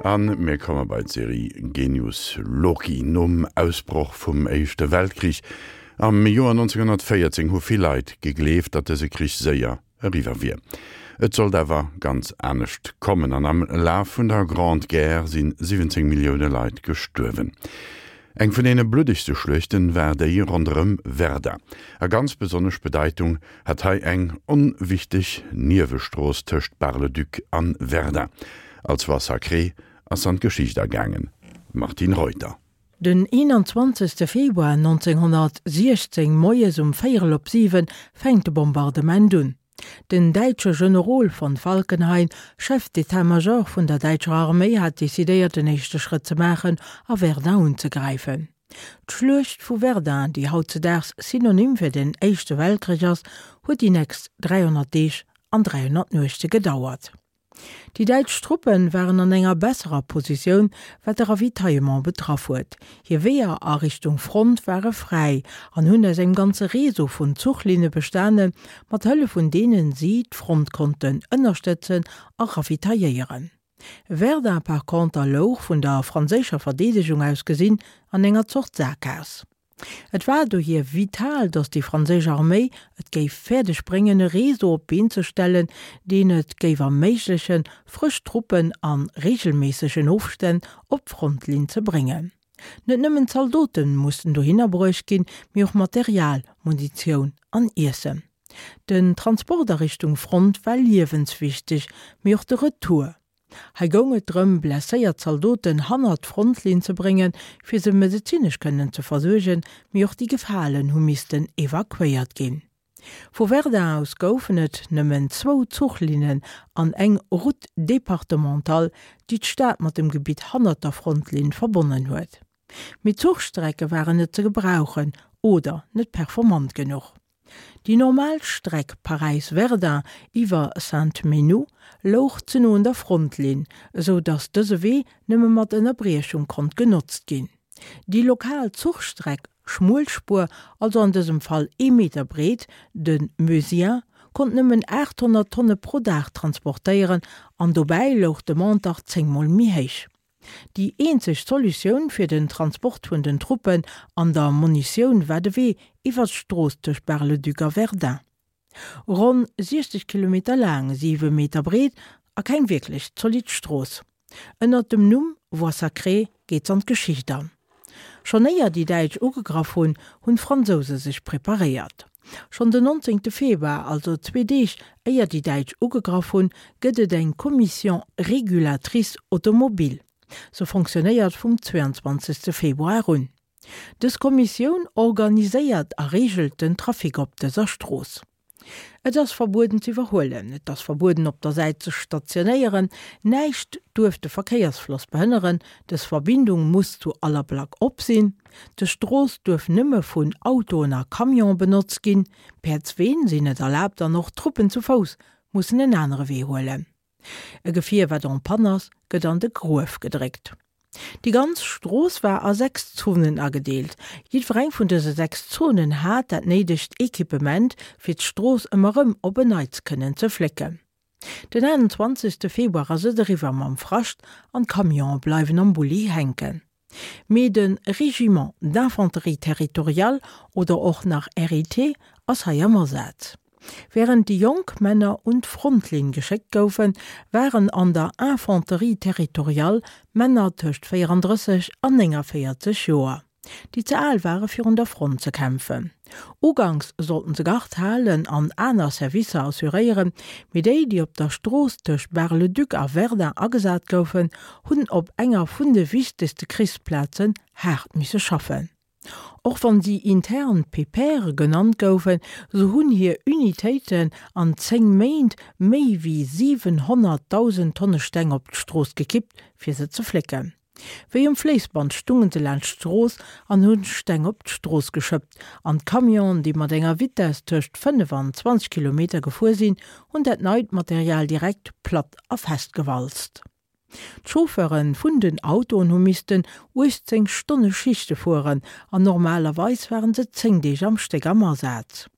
A mir komme bei d'Serie Genius Loci. Nom Ausbroch vum Éischte Weltkrich am Joer 1914 hu vill Leit gegleeft, datt dëse Krich séier eriwwer wier. Et sollt awer ganz anescht kommen an am Laf vun der Grande Guerre si 17 Millioune Leit gestuerwen. Eng vun deene bluddegste Schluechten war déi ronderëm Verdun. A ganz besonnesch Bedeitung hat hei eng onwichteg Niewestrooss tëscht Bar-le-Duc an Verdun. Als Voie sacrée ass s'an d'Geschicht agaangen. Martine Reuter. Den 21. Februar 1916 moies um véierel op 7 fänkt de Bombardement un. Den däitsche Generol von Falkenhayn, Chef d'état-major vun der däitscher Arméi, hat decidéiert den éischte Schrëtt ze maachen a Verdun unzegräifen. D'Schluecht vu Verdun, déi hautzedaags Synonym fir den Éischte Weltkrich ass, huet déi nächst 300 Deeg an 300 Nuechte gedauert. Déi däitsch Truppe waren an enger besserer Positioun, wat de Ravitaillement betraff huet. Hir Weeër a Richtung Front ware fräi an hunn aus engem ganze Réseau vun Zuchlinne bestanen, mat Hëllef vun deenen si d'Front konnten ënnerstëtzen a ravitailléieren. Verdun par conter louch, vun der franséischer Verdeedegung aus gesinn, an enger Zort Saakgaass. Et war dohier vital, datt déi franséisch Arméi et géif fäerdeg bréngen, e Réseau op d'Been ze stellen, deen et géif erméiglechen, frësch Truppen a reegelméissegen Ofstänn op d'Frontlinn ze bréngen. Net nëmmen d'Zaldote mussten dohinner bruecht ginn, mee och Material, Munitioun an Iessen. Den Transport a Richtung Front war liewenswichteg, mee och de Retour. Hei goung et drëm, blesséiert Zaldoten hannert d'Frontlinn ze bréngen, fir se medezinesch kënnen ze versuergen, mee och déi Gefalen hu missten evakuéiert ginn. Vu Verdun aus goufen et nëmmen zwou Zuchlinnen an eng Route départementale, déi d'Stad mat dem Gebitt hannert der Frontlinn verbonnen huet. Mee d'Zuchstrecke waren net ze gebrauchen oder net performant genuch. Déi normal Streck Paräis-Verdun iwwer Sainte-Menehould louch ze no un der Frontlinn, esou datt dëse Wee nëmme mat Ënnerbriechung konnt genotzt ginn. Déi lokal Zuchstreck, Schmuelspuer, also an dësem Fall ee Meter breet, de Meusien, konnt nëmmen 800 Tonne pro Dag transportéieren an dobäi louch d'Demande dach zéngmol méi héich. Déi eenzeg Solutioun fir den Transport vun den Truppen an der Munitioun war de Wee iwwer d'Strooss tëscht Bar-le-Duc a Verdun. Ronn 60 Kilometer laang, 7 Meter breet a keng wierklech zolidd Strooss. Ënnert dem Numm Voie sacrée geet s'an d'Geschicht an. Schonn éier déi Däitsch ugegraff hunn, hunn d'Fransouse sech preparéiert. Schonn den 19. Februar, also zwee Deeg éier déi Däitsch ugegraff hunn, gëtt et eng Commission régulatrice automobile. Se fonctionnéiert vum 22. Februar un. Dës Kommissioun organiséiert a reegelt den Trafic op dëser Strooss. Et ass verbueden ze iwwerhuelen, et ass verbueden op der Säit ze stationéieren, näischt duerf de Verkéiersfloss behënneren, dës Verbindung muss zu aller Plack op sinn, dës Strooss duerf nëmme vun Autoen a Camione benotzt ginn, Päerdsween sinn net erlaabt an och Truppen zu Fouss mussen en anere Wee huelen. E Gefier wat en panne ass, gëtt an de Gruef gedréckt. Déi ganz Strooss war a 6 Zonen agedeelt. Jiddwereng vun dëse 6 Zonen hat dat néidegt Equipement, fir d'Strooss ëmmer rëm op en Neits kënnen ze flécken. Den 28 Februar ass et eriwwer mam Frascht an d'Camionë bleiwen am Bulli hänken. Mee de Régiment d'infanterie territoriale oder och nach RIT ass hei am Asaz. Wärend déi jonk Männer un d'Frontlinn geschéckt goufen, waren an der Infanterie territoriale Männer tëscht 34 an 49 Joer, déi ze al ware fir un der Front ze kämpfen. Uganks sollten se Gard halen an aner Servicer assuréieren, mee déi, déi op der Strooss tëscht Bar-le-Duc a Verdun agesat goufen, hunn op enger vun de wichtegste Krichsplazen haart misse schaffen. Och wann si intern Pépères genannt goufen, sou hunn hir Unitéiten an 10 Méint méi wéi 700.000 Tonne Steng op d'Strooss gekippt, fir se ze flécken. Wéi um Fléissband stungen se laanscht d'Strooss an hunn Steng op d'Strooss geschëppt, an d'Camionen, déi mat enger Vitess tëscht 5 an 20 Kilometer gefuer sinn, hunn dat neit Material direkt platt a fest gewalzt. D'Chauffeure vun den Autoen hu missten 18 Stonne Schichte fueren an normalerweis waren se 10 Deeg am Stéck am Asaz.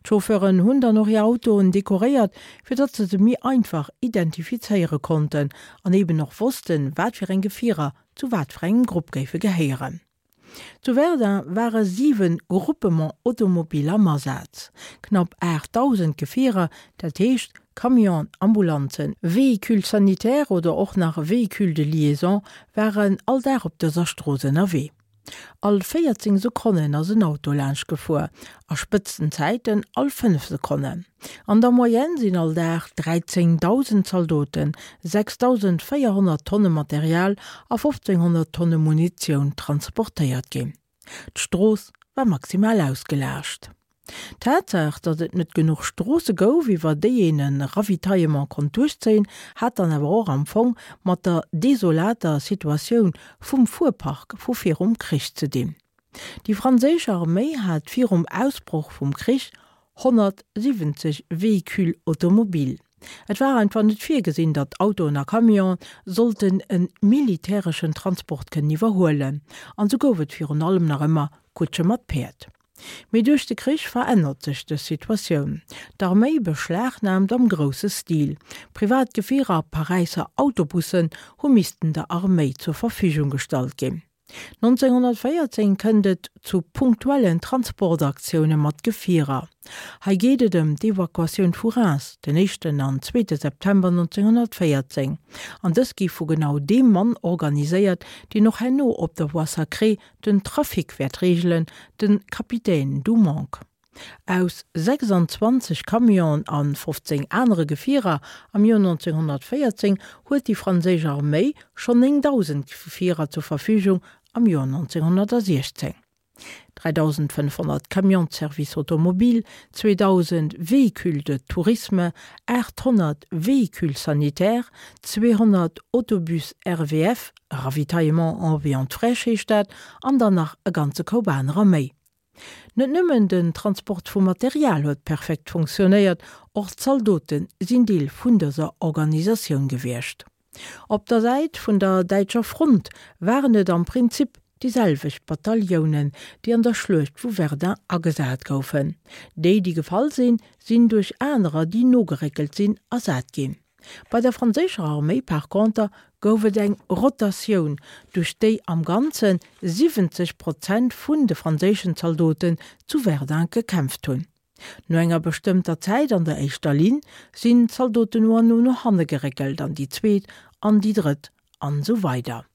D'Chauffeuren hunn dann och hir Autoen dekoréiert, fir datt se se méi einfach identifizéiere konnten an eben och wossten, wat fir eng Gefierer zu wat fir engem Grupp géife gehéieren. Zu Verdun ware 7 Groupements automobiles am Asaz. Knapp 8.000 Gefierer, dat heescht Camionen, Ambulanzen, Véhicules sanitaires oder och nach Véhicules de liaison, waren all Dag op dëser Strooss ënnerwee. All 14 Sekonnen ass en Auto laanscht gefuer, a Spëtzenzäiten all 5 Sekonnen. An der Moyenne sinn all Dag 13.000 Zaldoten, 6.400 Tonne Material a 1.500 Tonne Munitioun transportéiert ginn. D'Strooss war maximal ausgelaascht. D'Tatsaach, datt et net genuch Stroosse gouf, iwwer déi een e Ravitaillement konnt duerchzéien, hat dann awer och am Fong mat der desolater Situatioun vum Fuerpark vu virum Krich ze dinn. Déi franséisch Arméi hat virum Ausbroch vum Krich 170 Véhicules automobiles. Et war einfach net virgesinn, datt Autoen a Camionen sollten e militäreschen Transport kënnen iwwerhuelen, an sou gouf et virun allem nach ëmmer Kutsche mat Päerd. Mee duerch de Krich verännert sech dës Situatioun. D'Arméi beschlagnaamt am grousse Stil. Privat Gefierer a Paräisser Autobussen hu missten der Arméi zur Verfügung gestallt ginn. 1914 kënnt et zu punktuellen Transportaktioune mat Gefierer. Hei geet et ëm d'Evakuatioun vu Reims den éischten an zweete September 1914. An dës gi vu genau deem Mann organiséiert, deen och herno op der Voie Sacrée Den Trafic wäert reegelen de Kapitän Dumonc. Aus 26 Camionen a 15 anere Gefierer am Joer 1914 huet déi franséisch Arméi schonn 9.000 Gefierer zur Verfügung am Joer 1916. 3.500 Camions de service automobile, 2.000 Véhicules de tourisme, 800 Véhicules sanitaires, 200 Autobus RVF, Ravitaillement en viande fraîche heescht dat, an dann nach e ganze Koup anerer méi. Net nëmmen den Transport vu Material huet perfekt funktionéiert, och d'Zaldote sinn Deel vun dëser Organisatioun gewiescht. Op der Säit vun der däitscher Front waren et am Prinzip déi selwecht Bataillonen, déi an der Schluecht vu Verdun agesat goufen. Déi, déi gefall sinn, sinn duerch anerer, déi nogeréckelt sinn, ersat ginn. Bei der franséischer Arméi par conter gouf et eng Rotatioun, duerch déi am Ganze 70 Prozent vun de franséischen Zaldoten zu Verdun gekämpft hunn. No enger bestëmmter Zäit an der éischter Linn sinn d'Zaldoten no an no no hanne geréckelt an déi zweet an déi drëtt an esou weider.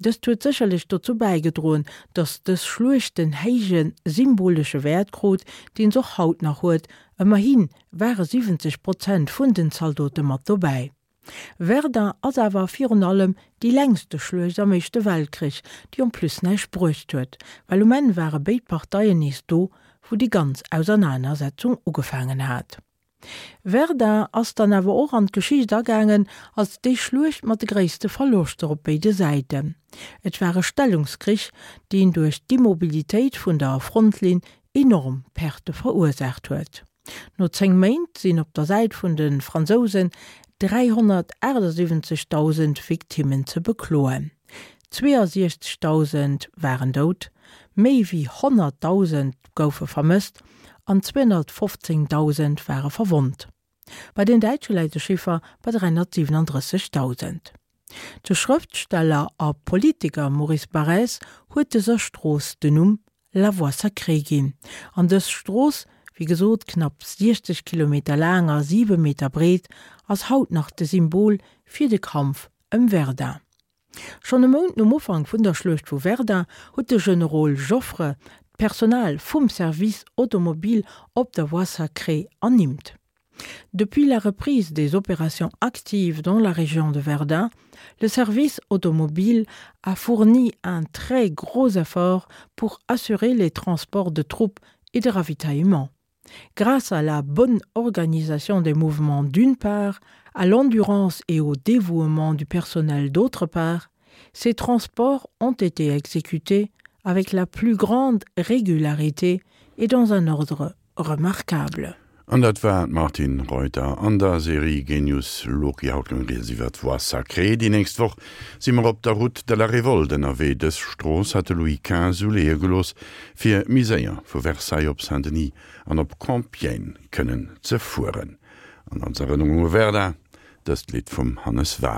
Dëst huet sécherlech dozou bäigedroen, datt dës Schluecht den héije symbolesche Wäert krut, deen s'och haut nach huet, ëmmerhi ware 70 Prozent vun den Zaldote mat dobäi. Verdun ass awer virun allem déi längste Schluecht am Éischte Weltkrich, déi en plus näischt bruecht huet, well um Enn ware béid Parteien nees do, wou déi ganz Ausernanersetzung ugefaangen hat. Verdun ass dann awer och an d'Geschicht agaangen als déi Schluecht mat de gréisste Verloschter op béide Säiten. Et war e Stellungskrich, deen duerch d'Immobilitéit vun der Frontlinn enorm Perte verursaacht huet. No 10 Méint sinn op der Säit vun de Fransousen 378.000 Victimmen ze bekloen. 62.000 waren dout, méi wéi 100.000 goufe vermësst an 215.000 ware verwonnt. Bei den Däitsche läit de Chiffer bei 337.000. De Schrëftsteller a Politiker Maurice Barrès huet dëser Strooss den Numm La Voie sacrée ginn. An dës Strooss, wéi gesot knapp 60 Kilometer laang a 7 Meter breet, ass haut nach de Symbol fir de Kampf ëm Verdun. Schonn e Mount nom Ufank vun der Schluecht vu Verdun huet de Generol Joffre d'Personal vum Service automobile op der Voie sacrée ernimmt. Depuis la reprise des opérations actives dans la région de Verdun, le service automobile a fourni un très gros effort pour assurer les transports de troupes et de ravitaillement. Grâce à la bonne organisation des mouvements d'une part, à l'endurance et au dévouement du personnel d'autre part, ces transports ont été exécutés avec la plus grande régularité et dans un ordre remarquable. An dat war d'Martine Reuter an der Serie Genius Loci. Haut goung rieds iwwer d'Voie sacrée. Déi nächst Woch si mer op der Route de la Révolte ënnerwee. Dës Strooss hat de Louis XV uleeë gelooss, fir méi séier vu Versailles op Saint-Denis an op Compiègne kënnen ze fueren. An als Erënnerung u Verdun dëst Lidd vum Hannes Wahl.